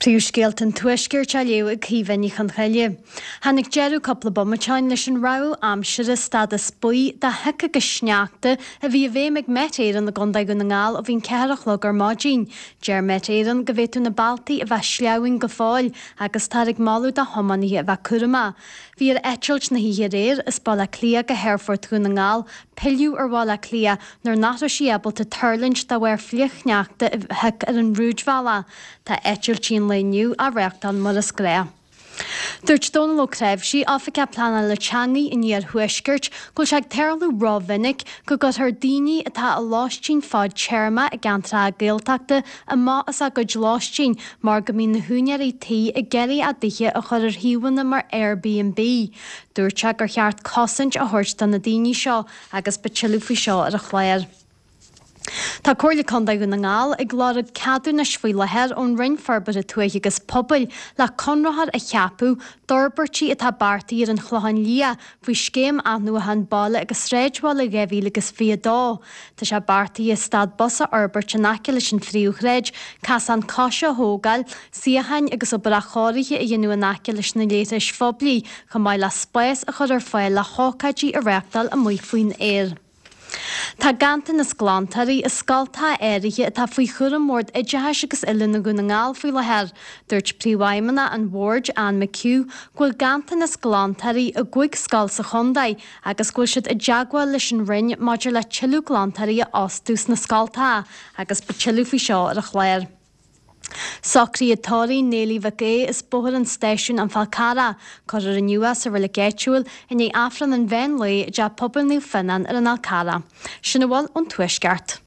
Príomhscéalta an Tuaiscirt á léamh ag Caoimhe Ní Chonchoille. Tháinig deireadh cúpla bomaite ó shin leis an rabhadh aimsire stádas buí de shioc agus sneachta a bhí i bhfeidhm ag Met Éireann i gContae Dhún na nGall ó bhí an 4 a chlog ar maidin. Deir Met Éireann go bhféadfadh na bealtaí a bheith sleamhain go fóill agus táthar ag moladh do thiománaithe a bheith cúramach. Bhí ar eitilt na hoíche aréir as Baile Átha Cliath go hAerfort Dhún na nGall pilleadh ar Bhaile Átha Cliath nuair nach raibh sí ábalta tuirlingt de bharr flichshneachta a thioc ar an rúidbhealach. Tá eitiltí an lae inniu á reáchtáil mar is gnách. Dúirt Dónal Ó Creabhsí, Oifigeach Pleanála Teanga an Iarthuaiscirt, go bhfuil sé ag tarlú rómhinic go gcuirtear daoine atá i lóistín fadtéarma i gceantracha Gaeltachta amach as a gcuid lóistín mar go mbíonn na húinéirí tí ag iarraidh a dtithe a chur ar shuíomhanna mar Airbnb. Dúirt sé gur cheart cosaint a thabhairt do na daoine seo agus beidh tuilleadh faoi seo ar an chlár. Tá Comhairle Contae Dhún na nGall ag lorg ceadúnais faoi láthair ón Roinn Forbartha Tuaithe agus Pobail le conraitheoir a cheapadh d'fhorbairtí atá beartaithe ar an Chlochán Liath faoi Scéim Athnuachan Baile agus Sráidbhaile 2022. Tá sé beartaithe stad bus a fhorbairt in aice leis an phríomhshráid, casán coise a thógáil, suíocháin agus obair athchóirithe a dhéanamh in aice leis na leithris phoiblí, chomh maith le spás a chur ar fáil le hócáidí a reáchtáil amuigh faoin aer. Tá ganntanas glantóirí i scoltacha áirithe atá faoi chúram Bhord Oideachais agus Oiliúna Dhún na nGall faoi láthair. Dúirt Príomhfheidhmeannach an Bhoird, Anne McHugh, go bhfuil ganntanas glantóirí i gcúig scoil sa chontae agus go bhfuil siad i dteagmháil leis an Roinn maidir le tuilleadh glantóirí a fhostú sna scoltacha agus beidh tuilleadh faoi seo ar an chlár. Socruithe tórraimh Néilí Mhic Aoidh as Bóthar an Stáisiúin An Fál Carrach, cuirfear inniu é sa reilig áitiúil i ndiaidh Aifreann an mheán lae i dTeach Pobail Naomh Fionnán ar an Fhál Carrach. Sin a bhfuil ón Tuaisceart.